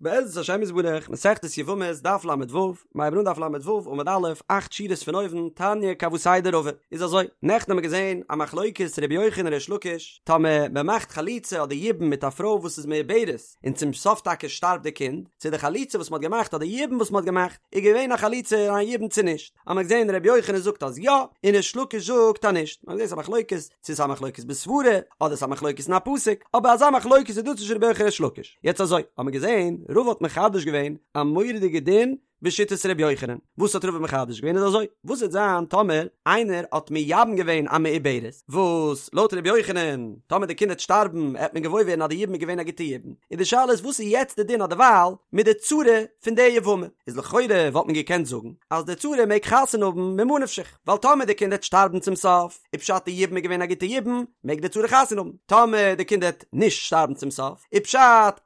בעזרת השם יתברך, מסכת יבמות, דף ל"ו, מיר הייבן אן דף ל"ו עמוד א', אכט שורות פון אויבן, תניא כוותיה דרבא. איז אזוי, נעכטן האבן מיר געזען א מחלוקת רבי יוחנן ריש לקיש, טאמער מען מאכט חליצה אדער יבום מיט א פרוי וואס איז מעוברת, און צום סוף טאקע שטארבט די קינד, צו די חליצה וואס מען האט געמאכט אדער יבום וואס מען האט געמאכט, איז געווען א חליצה און א יבום צו נישט. האבן מיר געזען רבי יוחנן זאגט אז יא, און ריש לקיש זאגט אז נישט. מיר האבן געזען ס'איז א מחלוקת, צו ס'איז א מחלוקת בסברה, אדער ס'איז א מחלוקת אין א פסוק, אבער אזא מחלוקת איז דא צווישן רבי יוחנן און ריש לקיש. יעצט אזוי, האבן מיר געזען, רבא האט מחדש געווען א מורא'דיגע דין בשיטת רבי יוחנן. וואס האט רבא מחדש געווען איז אזוי, וואס וועט זיין טאמער איינער האט מייבם געווען א מעוברת, וואס לויט רבי יוחנן, טאמער די קינד וועט שטארבן, העט מען געוואויר ווערן אז די יבום איז געווען א גוטע יבום. און די שאלה איז וואס איז יעצט די דין אדערווייל מיט די צרה פון די יבמה? איז לכאורה וואלט מען געקענט זאגן אז די צרה מעג חתונה האבן ממה נפשך, ווייל טאמער די קינד העט שטארבן צום סוף, איז פשט די יבום איז געווען א גוטע יבום, מעג די צרה חתונה האבן, טאמער די קינד העט נישט שטארבן צום סוף, איז פשט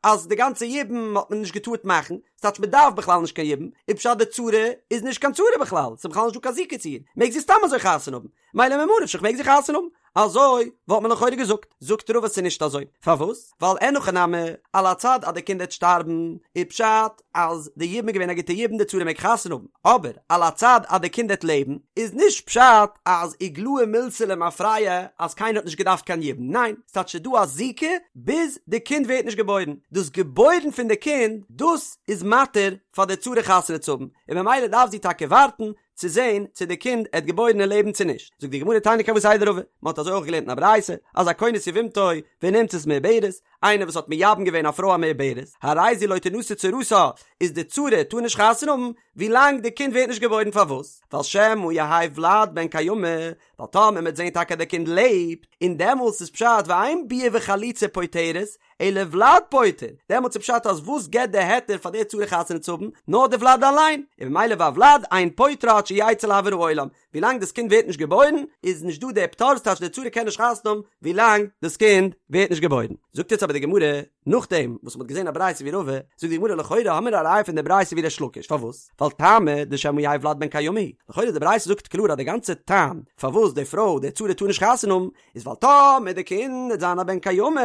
אז די גאנצע יבום האט מען נישט געטארט מאכן, ס'טייטש מען דארף בכלל נישט קיין יבום, איז פשט די צרה איז נישט קיין צרה בכלל, ס'איז בכלל נישט דא קיין זיקה צו איר, מעג זי סתם אזוי חתונה האבן, מילא ממה נפשך מעג זי חתונה האבן. אזוי וואלט מען לכאורה געזאגט. זאגט רבא ס'איז נישט אזוי. פארוואס? ווייל אין הכי נמי, על הצד אז די קינד העט שטארבן, איז פשט אז די יבום איז געווען א גוטע יבום די צרה מעג חתונה האבן. אבער על הצד אז די קינד העט לעבן, איז נישט פשט אז איגלאי מילתא למפרע אז קיינער האט נישט געדארפט קיין יבום. ניין, ס'טייטש ס'איז דא א זיקה ביז די קינד ווערט נישט געבוירן. דאס געבוירן פון די קינד, דאס איז מתיר פאר די צרה חתונה צו האבן, און ממילא דארף זי טאקע ווארטן צו זען צו די קינד עט געבוירן און לעבן צו נישט, זאגט די גמרא תניא כוותיה דרבא, מען האט אזוי אויך געלערנט אין א ברייתא, אז הכונס יבמתו ונמצאת מעוברת, איינער וואס האט מייבם געווען א פרוי א מעוברת, הרי זו לא תנשא צרתה, איז די צרה טאר נישט חתונה האבן ווילאנג די קינד ווערט נישט געבוירן פארוואס? ווייל שמא יהא ולד בן קיימא, ווייל טאמער מען וועט זען טאקע די קינד לעבט, און דעמאלס איז פשט ואין ביאה וחליצה פוטרת, אלא ולד פוטר, דעמאלטס איז פשט אז וואס געבט די היתר פאר די צרה חתונה צו האבן? נאר די ולד אליין, און ממילא והולד אין פוטרה עד שיצא לאויר העולם, ווילאנג דאס קינד ווערט נישט געבוירן איז נישט דא די פטור, ס'טייטש די צרה קען נישט חתונה האבן ווילאנג דאס קינד ווערט נישט געבוירן. זאגט יעצט אבער די גמרא, נאכדעם וואס מ'האט געזען א ברייתא ווי רבא, זאגט די גמרא לכאורה האמיר א ראיה פון די ברייתא ווי ריש לקיש, פארוואס? ווייל טעמא דשמא יהא ולד בן קיימא הוא, לכאורה די ברייתא זאגט קלאר אז די גאנצע טעם פארוואס די פרוי די צרה טאר נישט חתונה האבן איז ווייל טאמער די קינד וועט זיין א בן קיימא,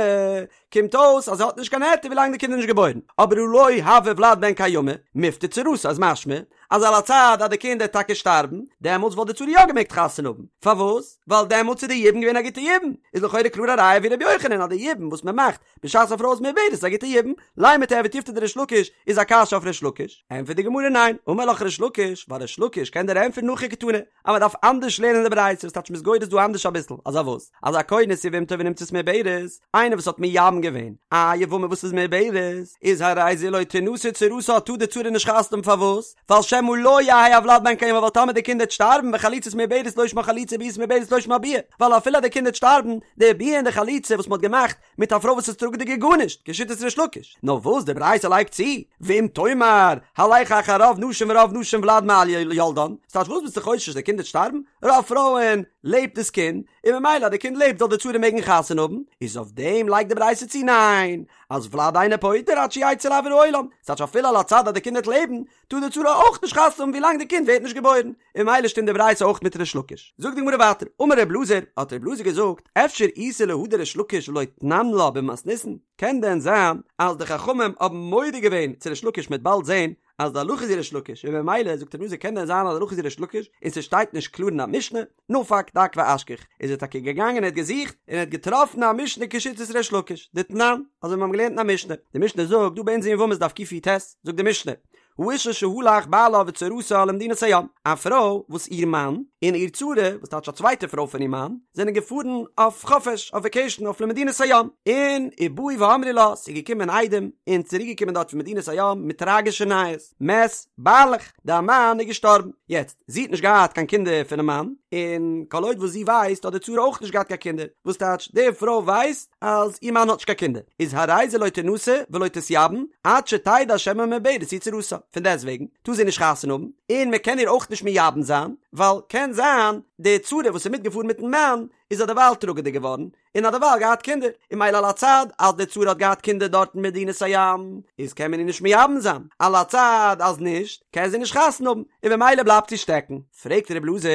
קומט אויס אז זי האט נישט קיין היתר ווילאנג די קינד איז נישט געבוירן, אבער הא לא הוה ולד בן קיימא, מיפטר צרתה איז משמע אז על הצד אז די קינד וועט טאקע שטארבן, דעמאלטס וואלט די צרה יא געמעגט חתונה האבן, פארוואס? ווייל דעמאלטס איז די יבום געווען א גוטע יבום, איז לכאורה קלאר א ראיה ווי ר' יוחנן אז די יבום וואס מען מאכט בשעת א פרוי איז מעוברת איז א גוטע יבום, לימא תיהוי תיובתא דריש לקיש איז א קשיא אויף ריש לקיש, ענטפערט די גמרא ניין, אמר לך ריש לקיש, ווייל ריש לקיש קען דיר ענטפערן הכי קתני, אז מען דארף אנדערש לערנען די ברייתא, וואס טייטש מ'איז גורס דא אנדערש אביסל, אז א וואס? אז הכונס יבמתו ונמצאת מעוברת, איינער וואס האט מייבם געווען א יבמה וואס איז מעוברת, איז הרי זו לא תנשא צרתה טאר די צרה נישט חתונה האבן פארוואס? ווייל שמא לא יהא הולד בן קיימא ווייל טאמער די קינד וועט שטארבן וחליצת מעוברת לא שמה חליצה וביאת מעוברת לא שמה ביאה, ווייל אפילו אז די קינד וועט שטארבן, די ביאה און די חליצה וואס מען האט געמאכט מיט א פרוי וואס איז טראגעדיג איז גארנישט, כשיטת ריש לקיש. נאר וואס די ברייתא לייגט צו, ואם תאמר, הלך אחר רוב נשים ורוב נשים ולד יולדן, ס'טייטש וואס ביסטו חושש די קינד וועט שטארבן? רוב פרויען לעבט דאס קינד, און ממילא אז די קינד לעבט זאל די צרה מעגן חתונה האבן, איז אויף דעם לייגט די ברייתא צו ניין, אז ולד אינו פוטר עד שיצא לאויר העולם, ס'טייטש אפילו על הצד אז די קינד וועט לעבן, טאר די צרה אויך נישט חתונה האבן ווילאנג די קינד ווערט נישט געבוירן, און ממילא שטימט די ברייתא אויך מיט ריש לקיש. זאגט די גמרא ווייטער, אמר ר' אלעזר, האט ר' אלעזר געזאגט, אפשר איתא להא דריש לקיש ולא תנן לה במתניתין, קען דען זיין אז די חכמים האבן מודה געווען צו ריש לקיש מ'עט באלד זען אז די הלכה איז ווי ריש לקיש, און ממילא זאגט ר' אלעזר קען דען זיין אז די הלכה איז ווי ריש לקיש און ס'שטייט נישט קלאר אין א משנה, נפק דק ואשכח, איז ער טאקע געגאנגען ער האט געזוכט און ער האט געטראפן א משנה כשיטת ריש לקיש, דתנן, אזוי ווי מיר האבן געלערנט אין א משנה, די משנה זאגט דא ביי אונז אין יבמות דף קי"ט, זאגט די משנה, האשה שהלך בעלה וצרתה למדינת הים, א פרוי וואס איר מאן און איר צרה, וואס טייטש א צווייטע פרוי פון איר מאן, זענען געפארן אויף חופש, אויף וועקעישן אויף למדינת הים, און ובאו ואמרו לה, ס'איז געקומען עדים און צוריק געקומען דארט פון מדינת הים מיט טראגישע נייעס, מת בעלך, דיין מאן איז געשטארבן, יעצט, זי האט נישט געהאט קיין קינדער פונעם מאן, און כל עוד וואס זי ווייסט האט די צרה אויך נישט געהאט קיין קינדער, וואס טייטש די פרוי ווייסט אז איר מאן האט נישט קיין קינדער, איז הרי זו לא תנשא ולא תתייבם עד שתדע שמא מעוברת היא צרתה, פון דעסט וועגן טאר זי נישט חתונה האבן, און מען קען איר אויך נישט מייבם זיין, ווייל קען זיין די צרה וואס איז מיטגעפארן מיטן מאן איז אדערווייל טראגעדיג געווארן, און האט דערווייל געהאט קינדער, און ממילא על הצד אז די צרה האט געהאט קינדער דארט אין מדינת הים, איז קען מען איר נישט מייבם זיין, על הצד אז נישט, קען זי נישט חתונה האבן, און במילא בלייבט זי שטעקן. פרעגט ר' אלעזר,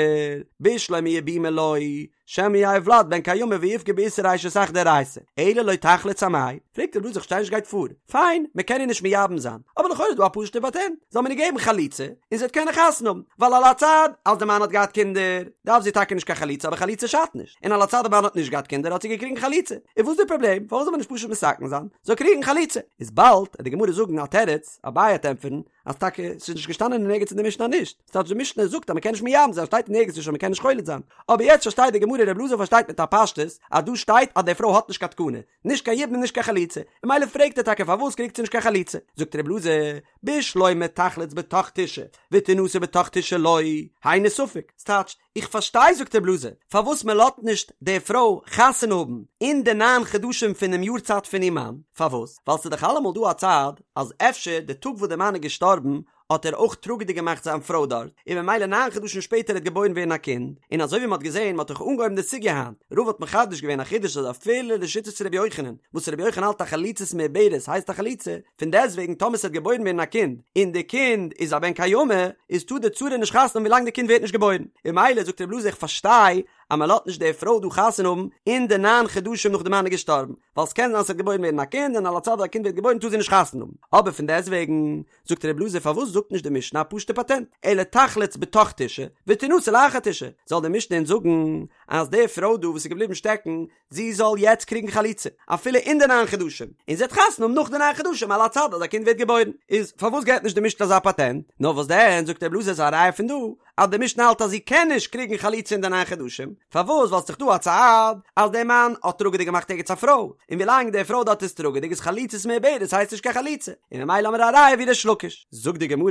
בשלמא יבומי לא. שמא יהא ולד בן קיימא ויפגע באיסור אשת אח דאורייתא, אלא לא תחלוץ אמאי? פרעגט ר' אלעזר איך פארשטיי נישט גייט פאר, פיין, מען קען איר נישט מייבם זיין, אבער לכאורה איז דא א פשוט'ע פאטענט, זאל מען איר געבן חליצה, און זי וועט קענען חתונה האבן, ווייל על הצד אז די מאן האט געהאט קינדער, דארף זי טאקע נישט קיין חליצה אבער חליצה שאדט נישט, און על הצד די מאן האט נישט געהאט קינדער האט זי געקריגן חליצה, איז וואס די פראבלעם, פארוואס זאל מען נישט פשוט מתקן זיין, זאל קריגן חליצה? איז באלד וועט די גמרא זאגן א תירוץ, אביי וועט ענטפערן, אז טאקע ס'איז נישט געשטאנען אין ערגעץ אין די משנה נישט, ס'טייטש די משנה זאגט אז מ'קען נישט מייבם זיין שטייט אין ערגעץ נישט אז מ'קען נישט חולץ זיין, אבער יעצט פארשטייט די גמרא ר' אלעזר פארשטייט מיט א פשטות אז דא שטייט אז די פרוי האט נישט קיין תקנה, נישט קיין יבום און נישט קיין חליצה, און ממילא פרעגט ער טאקע פארוואס קריגט זי נישט קיין חליצה, זאגט ר' אלעזר, בשלמא תחלוץ בתוך תשעה ותנשא בתוך תשעה לא, היינו ספק, ס'טייטש, איך פארשטיי זאגט ר' אלעזר, פארוואס מען לאזט נישט די פרוי חתונה האבן אין די ניין חדשים פונעם יארצייט פון איר מאן, פארוואס? ווייל ס'איז דאך אלעמאל דא א צד אז אפשר די טאג וואס די מאן איז געשטארבן האט ער אויך טראגעדיג געמאכט זיין פרוי דארט, און ממילא ניין חדשים שפעטער העט געבוירן ווערן א קינד, און אזוי ווי מען האט געזען, מען האט דאך אנגעהויבן די סוגיא היינט, רבא האט מחדש געווען א חידוש אז אפילו לשיטת ר' יוחנן, וואס ר' יוחנן האלט אז חליצת מעוברת הייסט א חליצה, פון דעסטוועגן טאמער ס'וועט געבוירן ווערן א קינד, און די קינד איז א בן קיימא, איז טאר די צרה נישט חתונה האבן ווילאנג די קינד ווערט נישט געבוירן. און ממילא זאגט רבי אלעזר איך פארשטיי אז מען לאזט נישט די פרוי דא חתונה האבן אין די ניין חדשים נאך די מאן איז געשטארבן, ווייל ס'קען זיין ס'וועט געבוירן ווערן א קינד און על הצד אז א קינד ווערט געבוירן טאר זי נישט חתונה האבן. אבער פון דעסטוועגן זאגט רבי אלעזר פארוואס זאגט נישט די משנה א פשוטע פאטענט, אלא תחלוץ בתוך תשעה ותנשא לאחר תשעה, זאל די משנה אונז זאגן אז די פרוי דא וואס איז געבליבן שטעקן זי זאל יעצט קריגן חליצה, אפילו אין די ניין חדשים, און זי וועט חתונה האבן נאך די ניין חדשים על הצד אז א קינד ווערט געבוירן. איז פארוואס געבט נישט די משנה אזא פאטענט? נאר וואס דען, זאגט רבי אלעזר איז א ראיה פון דא, אז די משנה האלט אז זי קען נישט קריגן חליצה אין די ניין חדשים, פארוואס? ווייל ס'איז דאך דא א צד אז דער מאן האט טראגעדיג געמאכט ערגעץ א פרוי, און ווילאנג די פרוי דארט איז טראגעדיג איז חליצת מעוברת הייסט נישט קיין חליצה, און ממילא האמיר א ראיה ווי ריש לקיש. זאגט די גמרא,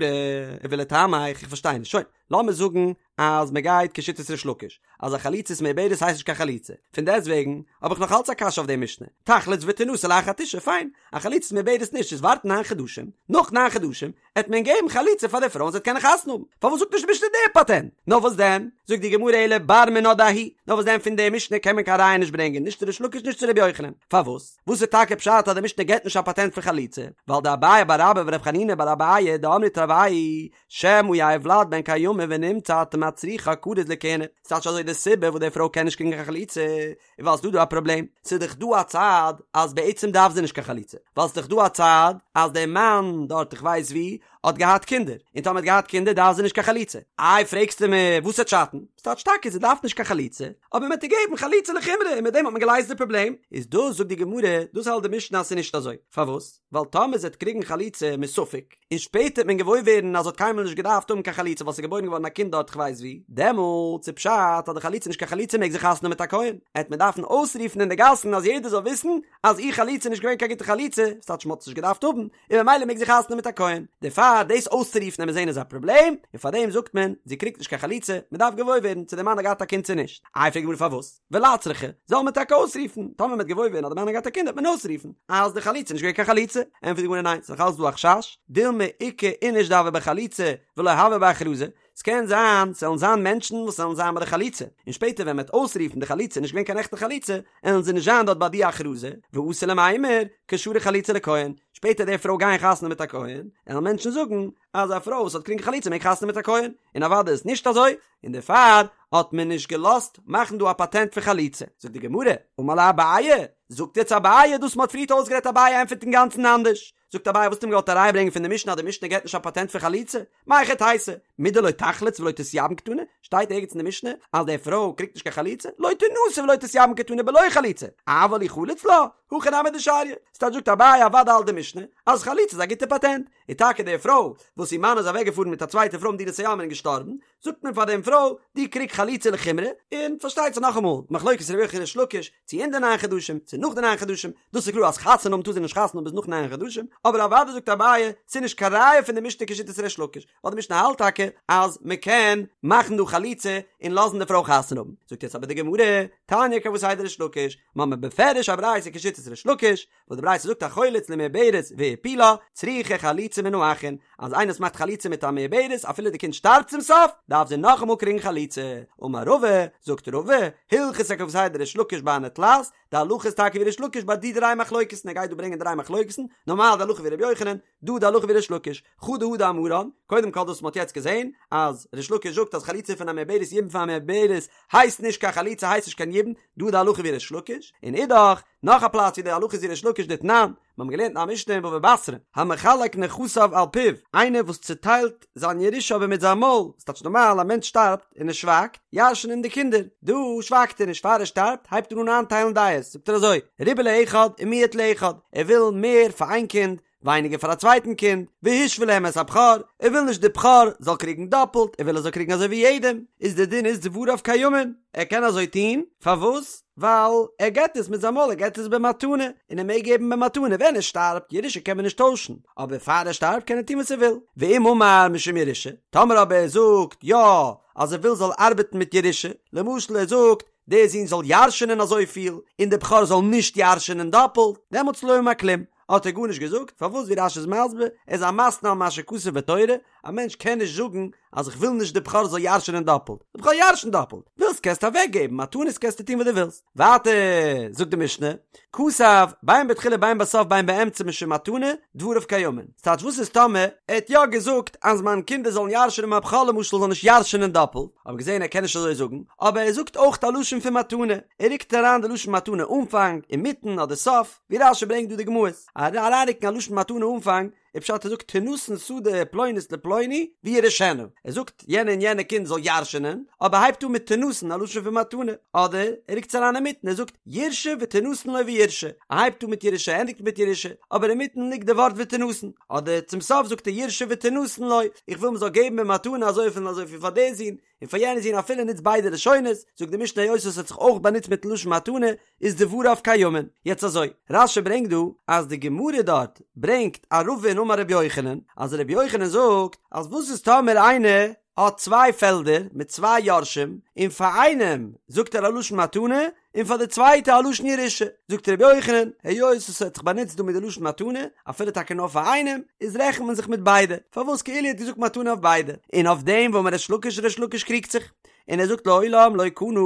ולטעמיך, איך פארשטיי נישט, שוין, לאמיר זאגן אז מען גייט כשיטת ריש לקיש אז א חליצת מעוברת הייסט נישט קיין חליצה, פון דעסט וועגן האב איך נאך אלץ א קשיא אויף די משנה, תחלוץ ותנשא לאחר תשעה, פיין, א חליצת מעוברת נישט איז ווארטן ניין חדשים, נאך ניין חדשים עט מען געבן חליצה פאר די פרוי און זי וועט קענען חתונה האבן, פארוואס זאגט נישט די משנה די פאטענט? נאר וואס דען, זאגט די גמרא אלא בר מינה דההיא, נאר וואס דען פון די משנה קען מען קיין ראיה נישט ברענגען נישט צו ריש לקיש נישט צו רבי יוחנן, פארוואס? וואס איז טאקע פשט אז די משנה געבט נישט א פאטענט פון חליצה? ווייל דאביי בר אבא ורב חנינא בר אביי דאמרי תרוייהו שמא יהא ולד בן קיימא ונמצא אתה מצריכה כרוז לכהונה, ס'טייטש אזוי די סיבה וואס די פרוי קען נישט קריגן קיין חליצה איז ווייל ס'דא דא א פראבלעם, ס'איז דאך דא א צד אז בעצם דארף זי נישט קיין חליצה, ווייל ס'איז דאך דא א צד אז דער מאן דארט איך ווייס ווי האט געהאט קינדער, און טאמער האט געהאט קינדער דארף זי נישט קיין חליצה. איי פרעגסטו מיר וואס וועט שאטן? ס'טייטש טאקע זי דארף נישט קיין חליצה, אבער מ'האט איר געגעבן חליצה לחומרא און מיט דעם האט מען געלייזט די פראבלעם, איז דאס זאגט די גמרא, דאס האלט די משנה אז ס'איז נישט אזוי, פארוואס? ווייל טאמער זי וועט קריגן חליצה מספק, און שפעטער וועט מען געוואויר ווערן אז זי האט קיינמאל נישט געדארפט האבן קיין חליצה ווייל ס'איז געבוירן געווארן א קינד דארט כ'ווייס ווי, דעמאלטס איז פשט אז די חליצה איז נישט קיין חליצה מעג זי חתונה האבן מיט א כהן, עט מען דארפן אויסרופן אין די גאסן אז יעדער זאל וויסן אז איר חליצה איז נישט געווען קיין גוטע חליצה, ס'טייטש מ'האט עס נישט געדארפט האבן, און ממילא מעג זי חתונה האבן מיט א כהן. דערפאר דאס אויסצורופן עמיר זען איז א פראבלעם, און פארדעם זאגט מען, זי קריגט נישט קיין חליצה, מ'דארף געוואויר ווערן צו דער מאן האט געהאט א קינד צו נישט. איי פרעגט די גמרא פארוואס? ולצרכא, זאל מען טאקע אויסרופן, טאמער מ'וועט געוואויר ווערן אז די מאן האט געהאט א קינד וועט מען אויסרופן אז די חליצה איז נישט געווען קיין חליצה, ענטפערט די גמרא ניין, ס'איז נאך אלץ דא א חשש, דילמא איכא איניש דהוה בחליצה ולא הוה בהכרזה, ס'קען זיין ס'וועלן זיין מענטשן וואס וועלן זיין ביי די חליצה, און שפעטער ווען מ'וועט אויסרופן די חליצה איז נישט געווען קיין עכטע חליצה, עלן זיי נישט זיין דארט ביי די הכרזה, ואתי למימר, קשרו חליצה לכהן, שפעטער די פרוי גייען חתונה מיט א כהן, עלן מענטשן זאגן אז א פרוי וואס האט געקריגן חליצה מעג חתונה מיט א כהן, און אוודאי איז נישט אזוי, און דערפאר האט מען נישט געלאזט מאכן דא א פאטענט פון חליצה. זאגט די גמרא, אמר ליה אביי, זאגט יעצט אביי דאס מ'האט פריערט אויסגערעדט אביי ענטפערט אינגאנצן אנדערש, זאגט אביי וואס האט מען געוואלט אריינברענגען פון די משנה אז די משנה געבט נישט א פאטענט פון חליצה? מהיכי תיתי, מדלא תחלוץ ולא תתייבם קתני, שטייט ערגעץ אין די משנה אז די פרוי קריגט נישט קיין חליצה? לא תנשא ולא תתייבם קתני בלא חליצה, אבל אי חלץ לה, הכי נמי דשריא, ס'טייטש זאגט אביי אוודאי האלט די משנה אז חליצה איז א גוטע פאטענט, און טאקע די פרוי וואס איר מאן איז אוועק געפארן מיט א צווייטע פרוי מדינת הים און געשטארבן, זאגט מען פאר דעם פרוי, דו קריג חליצה לחומרא, און פארשטייט זיך נאכאמאל, מחלוקת רבי יוחנן ריש לקיש, צו אין די ניין חדשים, צו נאך די ניין חדשים, דאס איז קלאר אז חתונה האבן טאר זי נישט חתונה האבן ביז נאך ניין חדשים, אבער אוודאי זאגט אביי, ס'איז נישט קיין ראיה פון די משנה כשיטת ריש לקיש, ווייל די משנה האלט טאקע אז מען קען מאכן דא חליצה און לאזן די פרוי חתונה האבן. זאגט יעצט אבער די גמרא, תניא כוותיה דריש לקיש, מ'האמיר בפירוש א ברייתא כשיטת ריש לקיש, וואס די ברייתא זאגט החולץ למעוברת והפילה, צריכה חליצה מן האחין, אז איינער וואס מאכט חליצה מיט א מעוברת אפילו די קינד שטארבט צום סוף, דארף זי נאכאמאל קריגן חליצה. אמר רבא, זאגט רבא, הלכתא כוותיה דריש לקיש בהני תלת, די הלכה איז טאקע ווי ריש לקיש ביי די דריי מחלוקת'ן, ער גייט דא ברענגען דריי מחלוקת'ן, נארמאל די הלכה ווי ר' יוחנן, דא די הלכה ווי ריש לקיש, חדא הא דאמרן, קודם כל דאס וואס מ'האט יעצט געזען, אז ריש לקיש זאגט אז חליצה פון א מעוברת יבום פון א מעוברת הייסט נישט קיין חליצה הייסט נישט קיין יבום, דא די הלכה ווי ריש לקיש, און אידך, נאך א פלאץ ווי די הלכה איז ווי ריש לקיש דתנן, מיר האבן געלערנט אין א משנה אין בבא בתרא, המחלק נכסיו על פיו, איינער וואס צוטיילט זיין ירושה אבער מיט זיין מויל, ס'טייטש נארמאל א מענטש שטארבט און ער שווייגט, ירש'ן אים די קינדער, דא שווייגט ער נישט פאר ער שטארבט הייבט ער אן איינטיילן דעות, זאגט ער אזוי, ריבה לאחד ומיעט לאחד, ער וויל מער פאר איין קינד, ווייניגער פאר א צווייטן קינד, והשווה להם את הבכור, ער וויל נישט די בכור זאל קריגן דאפלט, ער וויל ער זאל קריגן אזוי ווי יעדעם, איז די דין איז דבריו קיימין, ער קען אזוי טון, פארוואס? ווייל ער געט עס מיט זיין מויל, ער געט עס במתנה, און ער מעג געבן במתנה, ווען ער שטארבט, ירושה קען מען נישט טוישן, אבער פאר ער שטארבט קען ער טון וואס ער וויל, ואם אמר משום ירושה, טאמער אבער ער זאגט יא אז ער וויל זאל ארבעטן מיט ירושה, למשל ער זאגט דער זון זאל ירש'ענען אזויפיל, און דער בכור זאל נישט ירש'ענען דאפלט, דעמאלטס לא אמר כלום, האט ער גארנישט געזאגט, פארוואס ווי רש"י איז מסביר, ער איז א מתנה על מה שכתוב בתורה, א מענטש קען נישט זאגן אז איך וויל נישט די בכור זאל ירש'ענען דאפלט, די בכור ירש'נט דאפלט, ווילסט קענסטו אוועק געבן, מתנות קענסטו טון וואס דו ווילסט. ווייטער זאגט די משנה, כתב, בין בתחילה בין בסוף בין באמצע משום מתנה, דבריו קיימין. ס'טייטש וואס איז טאמער ער האט יא געזאגט אז מיין קינדער זאלן ירש'ענען מיין בכור למשל זאל נישט ירש'ענען דאפלט, האבן געזען ער קען נישט אזוי זאגן, אבער ער זאגט אויך א לשון פון מתנה, ער רוקט אריין די לשון מתנה אנפאנג, אינמיטן אדער סוף, ווי רש"י ברענגט דא די גמרות, אריינרוקן א לשון מתנה אנפאנג, איז פשט ער זאגט תינתן שדה פלונית לפלוני וירשנה, ער זאגט יענע און יענע קינד זאל ירש'נען, אבער הייבט אן מיט תינתן א לשון פון מתנה, אדער ער רוקט עס אריין אינמיטן ער זאגט יירשו ותינתן לו וירשה, ער הייבט אן מיט ירושה ענדיגט מיט ירושה, אבער אינמיטן ליגט די ווארט ותינתן, אדער צום סוף זאגט ער יירשו ותינתן לו, איך וויל מען זאל געבן במתנה אזויפיל און אזויפיל פאר די זון, און פאר יענע זון אפילו נוצט ביידע לשונות, זאגט די משנה היות עס האט זיך אויך באנוצט מיטן לשון מתנה, איז דבריו קיימין. יעצט אזוי, רש"י ברענגט דא אז די גמרא דארט ברענגט א רבין אמר רבי יוחנן, אז רבי יוחנן זאגט אז וואס איז טאמער איינער האט צוויי פעלדער מיט צוויי יורשים, און פאר איינעם זאגט ער א לשון מתנה, און פאר די צווייטע א לשון ירושה, זאגט רבי יוחנן, היות עס האט זיך באנוצט דא מיט די לשון מתנה, אפילו טאקע נאר פאר איינעם, איז רעכנט מען זיך מיט ביידע, פארוואס כאילו ער האט געזאגט מתנה אויף ביידע, און אויף דעם ואמר ריש לקיש ריש לקיש קריגט זיך, און ער זאגט לעולם לא קנה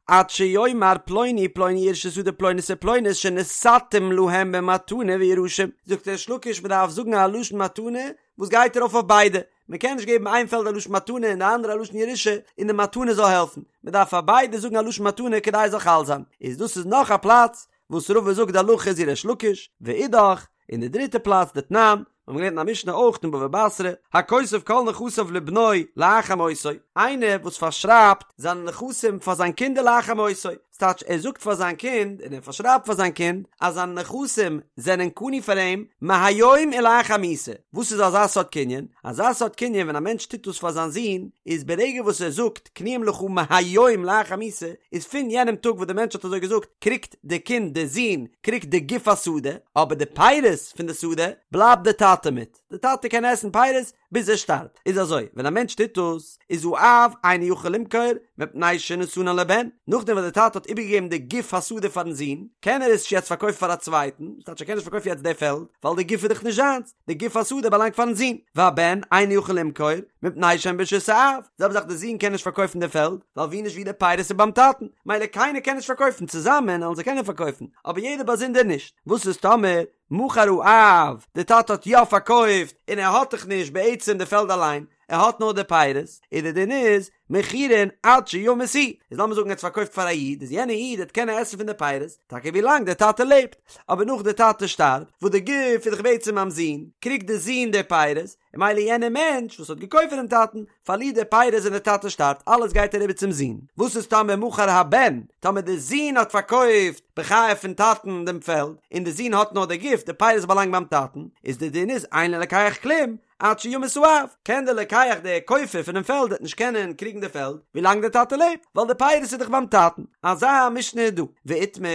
עד שיאמר פלוני פלוני יירשו שדה פלונית ופלונית שנתתים להם במתנה וירשום, זאגט ריש לקיש מען דארף זאגן א לשון מתנה וואס גייט ארויף אויף ביידע, מען קען נישט געבן איין פעלד א לשון מתנה און די אנדערע א לשון ירושה און די מתנה זאל העלפן, מען דארף פאר ביידע זאגן א לשון מתנה כדי עס זאל חל זיין, איז דאס איז נאך א פלאץ וואס רבא זאגט די הלכה איז ווי ריש לקיש, ואידך, און די דריטע פלאץ דתנן, מיר האבן געלערנט אין א משנה אויך אין בבא בתרא, הכותב כל נכסיו לבנו לאחר מותו, איינער וואס פארשרייבט זיינע נכסים פאר זיין קינדער לאחר מותו, ס'טייטש ער זאגט פאר זיין קינד און ער פארשרייבט פאר זיין קינד אז זיינע נכסים זענען קנוי פאר אים מהיום ולאחר מיתה, וואס איז אזא סארט קנין? אזא סארט קנין ווען א מענטש טוט דאס פאר זיין זון איז ברגע וואס ער זאגט קנויים לך מהיום לאחר מיתה איז פון יענעם טאג וואס דער מענטש האט אזוי געזאגט קריגט די קינד די זון קריגט די גוף השדה אבער די פירות פון די שדה בלייבט די טאטע מיט, די טאטע קען עסן פירות ביז ער שטארבט, איז אזוי, ווען א מענטש טוט דאס, איז האב אינו יכול למכור, מפני שנתנן לבן, נאכדעם וואס דער טאטע האט איבערגעגעבן די גוף השדה פארן זון, קען ער עס נישט יעצט פארקויפן פאר א צווייטן, ס'טייטש ער קען נישט פארקויפן יעצט די פעלד, ווייל די גוף איז דאך נישט זיינס, די גוף השדה באלאנגט פארן זון, והבן אינו יכול למכור, מפני שהן ברשות האב, זעלבע זאך די זון קען נישט פארקויפן די פעלד, ווייל ווי נישט ווי די פירות איז ביים טאטן, מילא קיינער קען נישט פארקויפן, צוזאמען וועלן זיי קענען פארקויפן, אבער יעדער באזונדער נישט, וואס איז טאמער מכר האב, די טאטע האט יא פארקויפט און ער האט דאך נישט בעצם די פעלד אליין, ער האט נאר די פירות, און די דין איז, מכורין עד שימות הוא, איז לאמיר זאגן ער האט פארקויפט פאר א איד, איז יענע איד וועט קענען עסן פון די פירות, טאקע ווי לאנג די טאטע לעבט, אבער נאך די טאטע שטארבט, וואס די גוף איז דאך בעצם ביים זון, קריגט די זון די פירות, און מילא יענער מענטש וואס האט געקויפט פונעם טאטן, פארלירט די פירות ווען די טאטע שטארבט, אלעס גייט אריבער צום זון. וואס איז טאמער מכר הבן, טאמער די זון האט פארקויפט בחייו פון טאטן דעם פעלד, און די זון האט נאר די גוף, די פירות באלאנגט ביים טאטן, איז די דין איז אין ללוקח כלום, עד שימות האב, קען דער לוקח דער קויפער פונעם פעלד וועט נישט קענען קריגן די פעלד, ווילאנג דער טאטע לעבט, ווייל די פירות איז דאך ביים טאטן. אזא משנה איז דא. ואיתמר,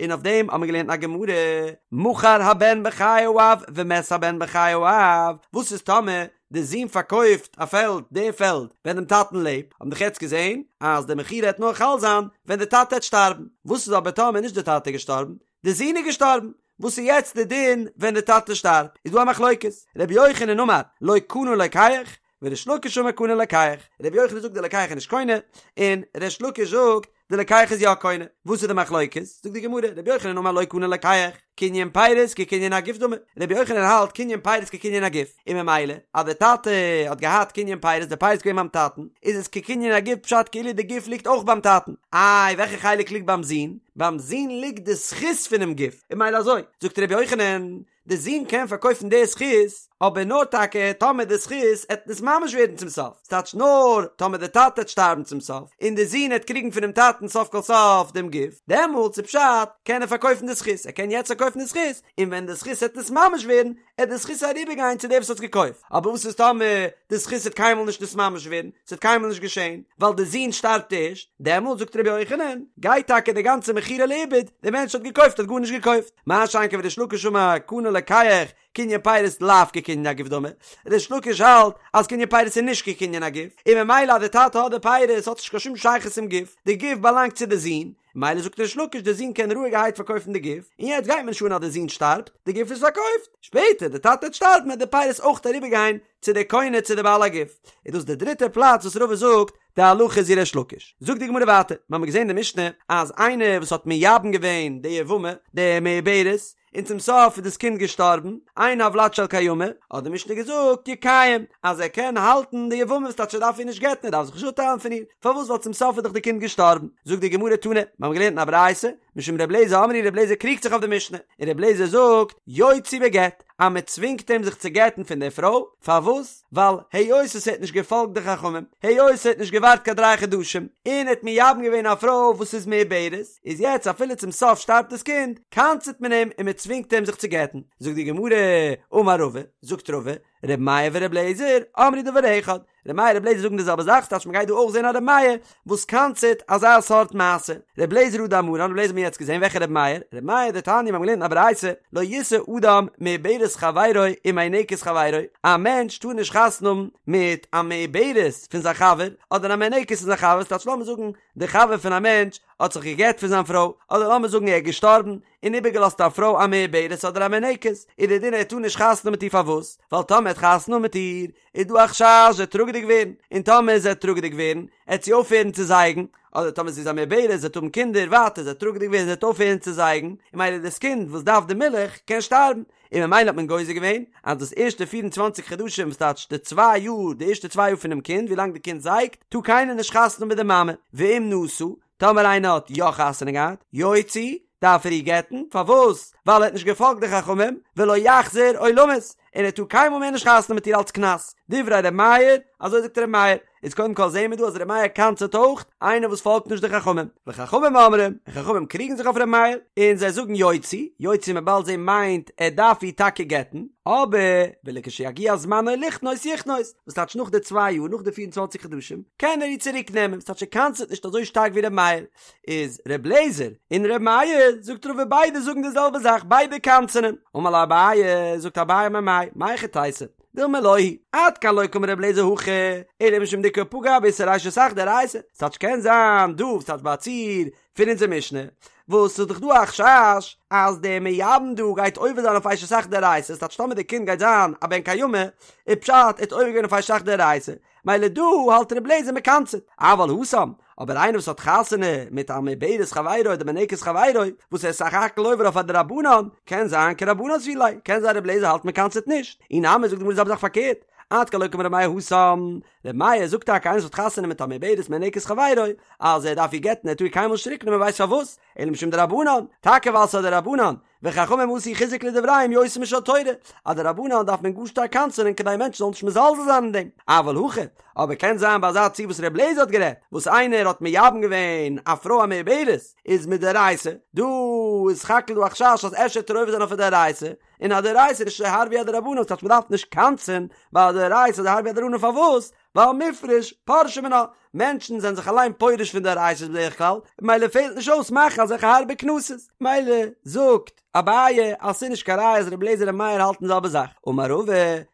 און אויף דעם האבן מיר געלערנט א גמרא, מכר הבן בחיי האב ומת הבן בחיי האב, וואס איז טאמער די זון פארקויפט א פעלד, די פעלד, ווען דעם טאטן לעבט, האבן דאך יעצט געזען אז די מכירה העט נאר חל זיין ווען די טאטע העט שטארבן, וואס איז אבער טאמער נישט די טאטע איז געשטארבן, די זון איז געשטארבן, וואס איז יעצט די דין ווען די טאטע שטארבט, איז דא א מחלוקת, רבי יוחנן אמר לא קנה לוקח, וריש לקיש אמר קנה לוקח, רבי יוחנן זאגט די לוקח איז נישט קונה, און ריש לקיש זאגט די לוקח איז יא קונה, וואס איז די מחלוקת? זאגט די גמרא, רבי יוחנן אמר לא קנה לוקח, קנין פירות כקנין הגוף דמי, רבי יוחנן האלט קנין פירות כקנין הגוף, און ממילא אז די טאטע האט געהאט קנין פירות, די פירות איז געווען ביים טאטן, איז עס כקנין הגוף פשט כאילו די גוף ליגט אויך ביים טאטן, איי וועלכע חלק ליגט ביים זון? ביים זון ליגט די זכות פונעם גוף, און ממילא אזוי זאגט רבי יוחנן, די זון קען פארקויפן די זכות, אבער נאר טאקע טאמער די זכות עט נתממש ווערן צום סוף, ס'טייטש נאר טאמער די טאטע עט שטארבן צום סוף, און די זון עט קריגן פונעם טאטן סוף כל סוף דעם גוף, דעמאלטס איז פשט קען ער פארקויפן די זכות, ער קען יעצט פארקויפן די זכות, און ווען די זכות עט נתממש ווערן, עט די זכות אריבערגיין צו דער וואס האט עס געקויפט, אבער וואס איז טאמער די זכות עט קיינמאל נישט נתממש ווערן, ס'עט קיינמאל נישט געשען, ווייל די זון שטארבט ערשט, דעמאלטס זאגט רבי יוחנן, גייט טאקע די גאנצע מכירה לאיבוד, דער מענטש האט געקויפט האט גארנישט געקויפט. מה שאין כן וריש לקיש אמר קנה לוקח קנין פירות לאו כקנין הגוף דמי, ריש לקיש האלט אז קנין פירות איז נישט כקנין הגוף, און ממילא אז די טאטע האט די פירות האט עס נישט קיין שום שייכות צום גוף, די גוף באלאנגט צו די זון, ממילא זאגט ריש לקיש די זון קען רואיגערהייט פארקויפן די גוף, און יעצט גייט מיר נישט אן אז די זון שטארבט, די גוף איז פארקויפט, שפעטער די טאטע וועט שטארבן וועט די פירות אויך אריבערגיין צו די קונה צו די בעל הגוף, איז דאס די דריטע פלאץ וואס רבא זאגט די הלכה איז ווי ריש לקיש. זאגט די גמרא ווייטער, מיר האבן געזען אין די משנה אז איינער וואס האט מייבם געווען די יבמה, די מעוברת, און צום סוף איז דאס קינד געשטארבן, אין הולד של קיימא, האט די משנה געזאגט יקיים, אז ער קען האלטן די יבמה וואס טייטש ער דארף איר נישט גט'ן ער דארף זיך נישט אפטיילן פון איר, פארוואס ווייל צום סוף איז דאך די קינד געשטארבן. זאגט די גמרא תנא, מיר האבן געלערנט אין א ברייתא, משום ר' אליעזר אמרו ר' אליעזר קריגט זיך אויף די משנה, און ר' אליעזר זאגט יוציא בגט, אז מען צווינגט אים זיך צו גט'ן פון דער פרוי, פארוואס? ווייל היות עס האט נישט געפאלגט די חכמים, היות ער האט נישט געווארט קיין דריי חדשים, און ער האט מייבם געווען א פרוי וואס איז מעוברת, איז יעצט אפילו צום סוף שטארבט דאס קינד, קנס'ט מען אים און מען צווינגט אים זיך צו גט'ן. זאגט די גמרא, אמר רבא, זאגט רבא, ר' מאיר ור' אליעזר אמרו דבר אחד, ר' מאיר ר' אליעזר זאגן די זעלבע זאך, ס'טייטש מ'גייט דא אויך זען א ר' מאיר וואס קנס'ט אזא סארט מעשה. ר' אליעזר הא דאמרן, ר' אליעזר האט מען יעצט געזען, וועלכע ר' מאיר? ר' מאיר דתניא, מיר האבן געלערנט אין א ברייתא, לא ישא אדם מעוברת חברו ומינקת חברו, א מענטש טאר נישט חתונה האבן מיט א מעוברת פון זיין חבר, אדער א מינקת פון זיין חבר, ס'טייטש לאמיר זאגן די חבר פון א מענטש האט זיך גע'גט פון זיין פרוי, אדער לאמיר זאגן ער איז געשטארבן, און איבערגעלאזט א פרוי א מעוברת אדער א מינקת, איז דער דין ער טאר נישט חתונה האבן מיט איר פארוואס? ווייל טאמער ער האט חתונה מיט איר איז דא א חשש זי וועט טראגעדיג ווערן, און טאמער זי וועט טראגעדיג ווערן עט זי אויפהערן צו זייגן, אדער טאמער זי איז א מעוברת זי וועט האבן קינדער ווייטער זי וועט טראגעדיג ווערן זי וועט אויפהערן צו זייגן, און ממילא דאס קינד וואס דארף די מילך קען שטארבן, און ממילא האט מען גוזר געווען אז דאס ערשטע פיר און צוואנציג חדשים וואס טייטש די צוויי יאר די ערשטע צוויי יאר פונעם קינד ווילאנג די קינד זייגט טאר קיינער נישט חתונה האבן מיט די מאמע, ואם נשא, טאמער איינער האט יא חתונה געהאט, יוציא, דארף ער איר גט'ן, פארוואס? ווייל ער האט נישט געפאלגט די חכמים, ולא יחזיר עולמית, און ער טאר קיינמאל מער נישט חתונה מיט איר אלץ קנס, דברי ר' מאיר, אזוי זאגט ר' מאיר, איז קודם כל זעהן מיר דא אז ר' מאיר קנס'עט אויך איינער וואס פאלגט נישט די חכמים, וחכמים אומרים, און חכמים קריגן זיך אויף ר' מאיר, און זיי זאגן יוציא, יוציא מ'עט באלד זעהן מיינט ער דארף איר טאקע גט'ן, אבער ולכשיגיע זמנו לכנוס יכנוס, וואס טייטש נאך די צוויי יאר, נאך די פיר און צוואנציג חדשים, קען ער איר צוריק נעמען, וואס טייטש ער קנס'עט נישט אזוי שטארק ווי ר' מאיר, איז ר' לעזער און ר' מאיר, זאגט רבא ביידע זאגן די זעלבע זאך, ביידע קנס'ענען, אמר ליה אביי, זאגט אביי ממאי, מהיכי תיתי, דילמא לא היא, עד כאן לא קאמר ר' לעזער הכא, אלא משום דאיכא פגע באיסור אשת אח דאורייתא, ס'טייטש קען זיין דא, ס'טייטש ביי א ציור פון אונזער משנה, וואס ס'איז דאך דא א חשש אז דער מייבם דא גייט עובר זיין אויף אשת אח דאורייתא, ס'טייטש טאמער די קינד גייט זיין א בן קיימא, איז פשט ער האט עובר געווען אויף אשת אח דאורייתא, מילא דא האלט ר' לעזער מ'קנס'עט, אבל התם, אבער איינער וואס האט חתונה מיט א מעוברת חברו אדער מינקת חברו, וואס ער איז סך הכל עובר אויף א דרבנן, קען זיין כרבנן סבירא ליה, קען זיין ר' לעזער האלט מ'קנס'עט נישט, אי נמי זאגט די גמרא די זעלבע זאך פארקערט, עד כאן לא קאמר ר' מאיר התם, ר' מאיר זאגט טאקע איינער וואס האט חתונה מיט א מעוברת מינקת חברו, אז ער דארף איר גט'ן ער טאר איר קיינמאל נישט צוריק נעמען ווייסט פארוואס? אלא משום דרבנן, טאקע ווייל ס'איז א דרבנן, וחכמים עשו חיזוק לדבריהם יותר משל תורה, א דרבנן דארף מען גאר שטארק קנס'ענען כדי מענטשן זאלן נישט מזלזל זיין אין דעם, אבל הכא, אבער קען זיין ביי אזא ציור וואס ר' לעזער האט גערעדט, וואס איינער האט מייבם געווען א פרוי א מעוברת, איז מדאורייתא, דא איז סך הכל דא א חשש אז אפשר וועט ער עובר זיין אויף א דאורייתא, און א דאורייתא איז נישט אזוי הארב ווי א דרבנן, ס'טייטש מ'דארף נישט קנס'ען ביי א דאורייתא אזוי הארב ווי א דרבנן פארוואס? ווייל מפרש פרשי מינה, מענטשן זענען זיך אליין פורש פון דאורייתא'ס בדרך כלל, מילא פעלט נישט אויס מאכן אזעלכע הארבע קנסות, מילא זאגט אביי אז ס'איז נישט קיין ראיה אז רבי אליעזר און מאיר האלטן די זעלבע זאך, אמר רבא,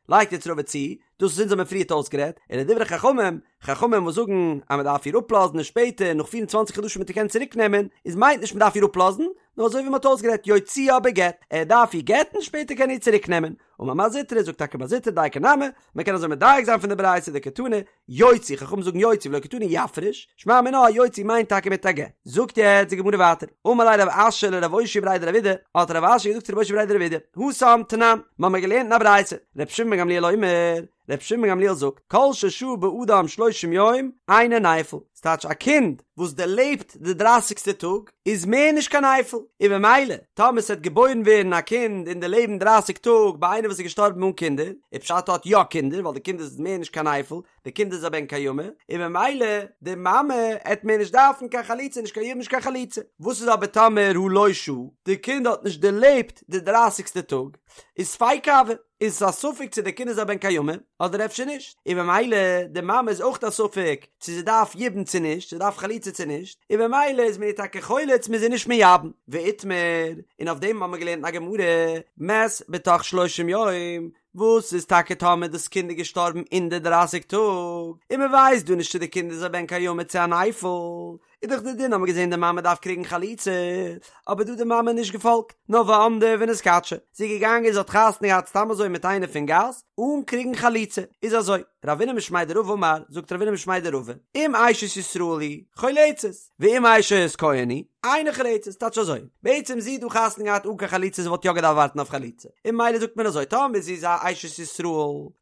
לייגט יעצט רבא צו, דאס וואס אונז האבן פריערט אויסגערעדט, ולדברי חכמים, חכמים וואס זאגן אז מען דארף איר אפלאזן און שפעטער נאך פיר און צוואנציג חדשים וועט ער קענען צוריק נעמען, איז מיינט נישט מען דארף איר אפלאזן, נאר אזוי ווי מען האט אויסגערעדט יוציאה בגט, ער דארף איר גט'ן שפעטער קען ער איר צוריק נעמען. אמר מר זוטרא, זאגט טאקע מר זוטרא דייקא נמי, מען קען אזוי מדייק זיין פון די ברייתא דקתני יוציא, חכמים זאגן יוציא ולא קתני יפריש, שמע מינה אז יוציא מיינט טאקע מיט א גט. זאגט יעצט די גמרא ווייטער, אמר ליה רב אשי לרב אושעיא בריה דרב אידי, האט רב אשי געזאגט צו רב אושעיא בריה דרב אידי, התם תנן, מ'האמיר געלערנט אין א ברייתא, ר' שמעון בן גמליאל אומר, ר' שמעון בן גמליאל זאגט, כל ששהה באדם שלושים יום, אינו נפל, ס'טייטש א קינד וואס דערלעבט די דרייסיגסטע טאג, איז מער נישט קיין נפל, און במילא, טאמער ס'וועט געבוירן ווערן א קינד און דערלעבן דרייסיג טאג ביי איינער וואס איז געשטארבן אן קינדער, איז פשט האט יא קינדער, ווייל די קינד איז מער נישט קיין נפל, די קינד איז א בן קיימא, און במילא, די מאמע עט מער נישט דארפן קיין חליצה, נישט קיין יבום נישט קיין חליצה. וואס איז אבער טאמער הא לא שהה, די קינד האט נישט דערלעבט די דרייסיגסטע טאג, איז ספיקא הוי, איז עס א ספק צו די קינד איז א בן קיימא אדער אפשר נישט, און במילא די מאמע איז אויך א ספק צו זי דארף יבום צו נישט, זי דארף חליצה צו נישט, און במילא איז מען איר טאקע חולץ מ'איז איר נישט מייבם. ואיתמר, און אויף דעם האבן מיר געלערנט אין א גמרא, מת בתוך שלושים יום, וואס איז טאקע טאמער דאס קינד איז געשטארבן אין די דרייסיג טאג, און מען ווייסט דא נישט צו די קינד איז א בן קיימא צו א נפל, איז דאך די דין האבן מיר געזען די מאמע דארף קריגן חליצה, אבער דא האט די מאמע נישט געפאלגט, נאר ועמדה ונתקדשה, זי איז געגאנגען זי האט חתונה געהאט סתם אזוי מיט איינער פון גאס, אן קריגן חליצה, איז אזוי, רבינא משמיה דרבא אמר, זאגט רבינא משמיה דרבא, אם אשת ישראל היא, חולצת, ואם אשת כהן היא, אינה חולצת, טייטש אזוי, בעצם זי האט דא חתונה געהאט אן קיין חליצה זי וואלט יא געדארפט ווארטן אויף חליצה, און ממילא זאגט מען אזוי, טאמער זי איז א אשת ישראל,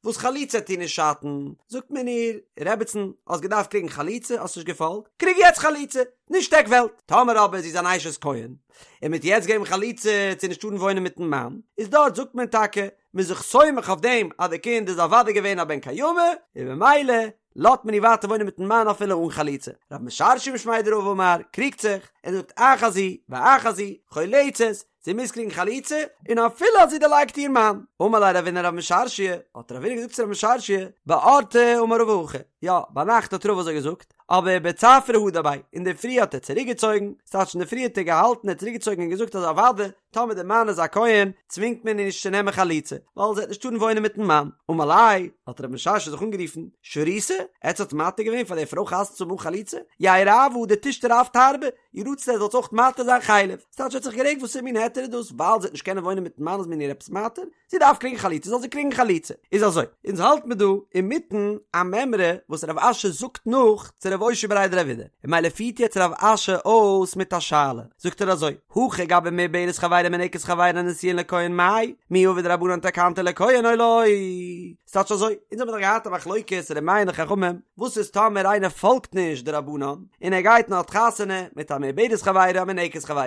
וואס חליצה עט איר נישט שאטן, זאגט מען איר, רעבעצן, האסט געדארפט קריגן חליצה, האסט נישט געפאלגט, קריג יעצט חליצה, נישט עק וועלט. טאמער אבער זי איז אן אשת כהן, און מ'עט יעצט געבן חליצה עט זי נישט טארן וואוינען מיטן מאן, איז דארט זאגט מען טאקע, מ'איז זיך סומך אויף דעם אז די קינד איז אוודאי געווען א בן קיימא, און ממילא לאזט מען איר ווייטער וואוינען מיטן מאן אפילו אן חליצה. רב משרשיא משמיה דרבא אמר, קריגט זיך, און זאגט אחת זו ואחת זו, חולצת, זי מוז קריגן חליצה, און אפילו אז זי דערלייגט איר מאן. אמר ליה רבינא לרב משרשיא, האט רבינא געזאגט צו רב משרשיא, באורתא אמר רבא הכי, יא, ביינאכט האט רבא אזוי געזאגט, אבער בצפרא הדר ביה, אינדערפרי האט ער צוריקגעצויגן, ס'טייטש אינדערפרי האט ער געהאלטן, ער האט צוריקגעצויגן און געזאגט אז אוודאי, טאמער דער מאן איז א כהן, צווינגט מען איר נישט צו נעמען חליצה, ווייל זי וועט נישט טארן וואוינען מיטן מאן. אמר ליה, האט רב משרשיא זיך אנגערופן, שריתו, עטס האט מתיר געווען פאר דער פרוי חתונה צו האבן אן חליצה? יהא רעווא דתשתרו אף תרבא, יהי רצון עטס זאלטס אויך מתיר זיין חלב. ס'טייטש ער האט זיך גערעגט וואסער מין היתר איז דאס, ווייל זי וועט נישט קענען וואוינען מיטן מאן איז מען איר עפעס מתיר? זי דארף קריגן חליצה זאל זי קריגן חליצה. איז אזוי, אונז האלט מיר דא אינמיטן א מימרא וואס רב אשי זאגט נאך צו רב אושעיא בריה דרב אידי, און ממילא פירט יעצט רב אשי אויס מיט א שאלה, זאגט ער אזוי, הכא גבי מעוברת חברו מינקת חברו נשואין לכהן מאי, מי עבוד רבנן תקנתא לכהן או לא? ס'טייטש אזוי, אונז האבן דאך געהאט א מחלוקת ר' מאיר און די חכמים, וואס איז טאמער איינער פאלגט נישט די רבנן, און ער גייט און האט חתונה מיט א מעוברת חברו א מינקת חברו.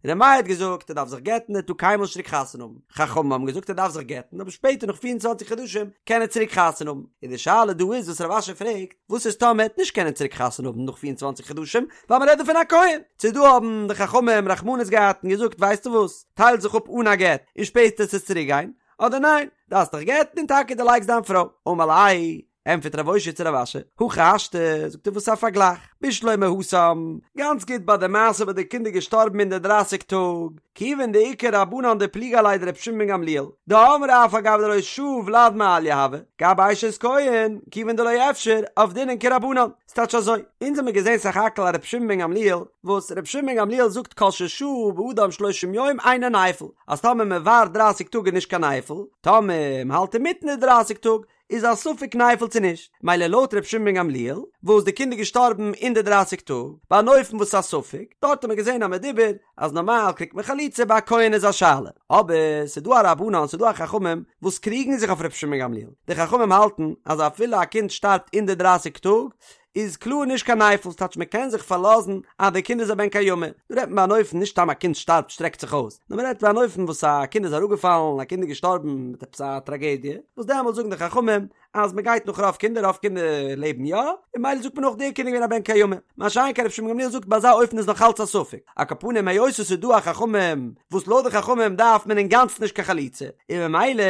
ר' מאיר האט געזאגט ער דארף זיך גט'ן ער טאר קיינמאל נישט צוריק חתונה האבן, חכמים האבן געזאגט ער דארף זיך גט'ן אבער שפעטער נאך 24 חדשים קען ער צוריק חתונה האבן, און די שאלה דא איז וואס רב אשי פרעגט, וואס איז טאמער ער וועט נישט קענען צוריק חתונה האבן נאך 24 חדשים, ווייל מען רעדט דא פון א כהן, צו דא האבן די חכמים רחמנות געהאט און געזאגט ווייסטו וואס, טייל זיך אפ אן א גט און שפעטער וועסטו צוריק גיין, אדער ניין, דארפסט דיך גט'ן און טאקע דערלייגסט דיין פרוי, אמר ליה, ענטפערט רב אושעיא צו רב אשי, הכי השתא, זאגט ער וואס א פארגלייך, בשלמא התם, גאנץ גוט ביי די מעשה וואס די קינד איז געשטארבן אין די דרייסיג טאג, כיוון דאיכא רבנן דפליגי עליה דרבי שמעון בן גמליאל, דאמרי אף על גב דלא שהי ולד מעליא הוי, גבי אשת כהן, כיוון דלא אפשר, עבדינן כרבנן. ס'טייטש אזוי, אונז האמיר געזען סך הכל א רבי שמעון בן גמליאל, וואס רבי שמעון בן גמליאל זאגט כל ששהה באדם שלושים יום אינו נפל, אז טאמער מען ווארט דרייסיג טאג איז נישט קיין נפל, טאמער מען האלט אינמיטן די דרייסיג טאג, איז א ספק נפל צו נישט, מילא לויט ר' שמעון בן גמליאל, וואס די קינד איז געשטארבן אין די דרייסיג טאג, ביי אן אופן וואס איז א ספק, דארט האט מען געזען א מדובר אז נארמאל קריגט מען חליצה ביי א כהן איז א שאלה, אבער ס'איז דא א רבנן ס'איז דא א חכמים וואס קריגן זיך אויף ר' שמעון בן גמליאל, די חכמים האלטן אז אפילו א קינד שטארבט אין די דרייסיג טאג, איז קלאר נישט קיין נפל, ס'טייטש מען קען זיך פארלאזן אז די קינד איז א בן קיימא, דא רעדט מען ביי אן אופן נישט סתם א קינד שטארבט שטרעקט זיך אויס, נאר מען רעדט ביי אן אופן וואס א קינד איז אראפגעפאלן, א קינד איז געשטארבן מיט עפעס א טראגעדיע, וואס דעמאלטס זאגן די חכמים אז מען גייט נאך רוב קינדער, רוב קינדער לעבן יא, און ממילא זאגט מען אויך דער קינד איז געווען א בן קיימא, מה שאין כן רבי שמעון גמליאל זאגט ביי אזא אופן איז נאך אלץ א ספק, על כל פנים היות עס איז דא א חכמים וואס לויט די חכמים דארף מען אינגאנצן נישט קיין חליצה, און ממילא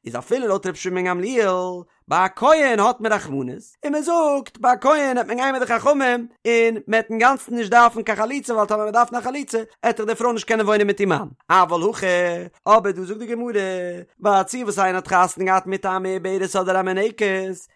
איז אפילו לויט רבי שמעון גמליאל. ביי א כהן האט מען רחמנות, און מען זאגט ביי א כהן העט מען גיין מיט די חכמים, און מען העט אינגאנצן נישט דארפן קיין חליצה ווייל טאמער מען דארף נאר חליצה העט דאך די פרוי נישט קענען וואוינען מיט איר מאן. אבל הכא, אבער דא זאגט די גמרא, ביי א ציור וואס איינער האט חתונה געהאט מיט א מעוברת אדער א מניקת,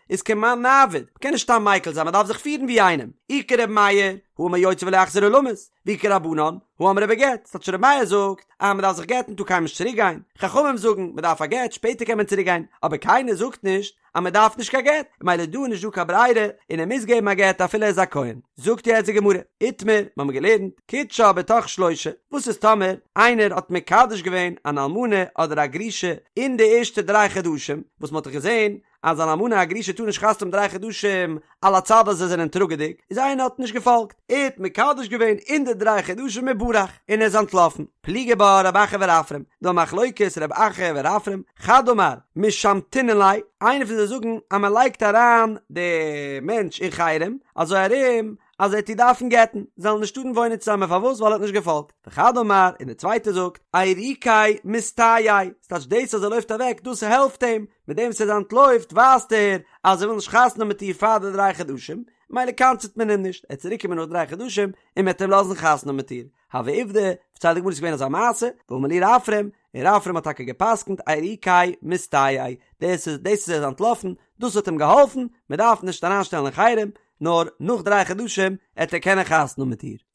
איז כמאן נעביד, מען קען נישט סתם מיקל זיין מען דארף זיך פירן ווי איינעם, אי כר' מאיר, הא אמר יוציא ולא יחזיר עולמית, ואי כרבנן, הא אמרי בגט, ס'טייטש ר' מאיר זאגט אז מען דארף זיך גט'ן טאר קיינמאל נישט צוריק גיין, חכמים זאגן מען דארף א גט שפעטער קען מען צוריק גיין, אבער קיינער זאגט נישט אז מען דארף נישט קיין גט, ממילא דא איז נישט דא קיין ברירה און ער מוז געבן א גט אפילו ער איז א כהן. זאגט יעצט די גמרא, איתמר, מיר האבן געלערנט, קידשה בתוך שלושה, וואס איז טאמער איינער האט מקדש געווען אן אלמנה אדער א גרושה אין די ערשטע דריי חדשים, וואס מען האט דאך געזען אז אן אלמנה א גרושה טאר נישט חתונה האבן דריי חדשים על הצד אז זיי זענען טראגעדיג, איז איינער האט נישט געפאלגט, ער האט מקדש געווען אין די דריי חדשים וברח, און ער איז אנטלאפן. פליגי בה רב אחא ורפרם, דא א מחלוקת רב אחא ורפרם, חד אמר, משמתינן ליה, איינער פון זיי זאגן אז מען לייגט אריין די מענטש אין חרם, אזוי ארום אז ער וועט איר דארפן גט'ן, זיי זאלן נישט טארן וואוינען צוזאמען פארוואס ווייל ער האט נישט געפאלגט, וחד אמר, און דער צווייטער זאגט, עירוקיה מסתייעיה, ס'טייטש דאס אז ער לויפט אוועק דאס העלפט אים, מיט דעם וואס ער אנטלויפט ווייזט ער אז ער וויל נישט חתונה האבן מיט איר פאר די דריי חדשים, מילא קנס'ט מען אים נישט, ער וועט צוריק קומען נאך דריי חדשים און מ'וועט אים לאזן חתונה האבן מיט איר. הוה עובדא, פארציילט די גמרא ס'איז געווען אזא מעשה, ואמר להו רפרם, און רפרם האט טאקע גע'פסק'נט עירוקיה מסתייעיה, דאס איז דאס אז ער איז אנטלאפן, דאס האט אים געהאלפן, מ'דארף נישט אריינשטעלן אין חרם, נאר נאך דריי חדשים עט ער קענען חתונה האבן מיט איר.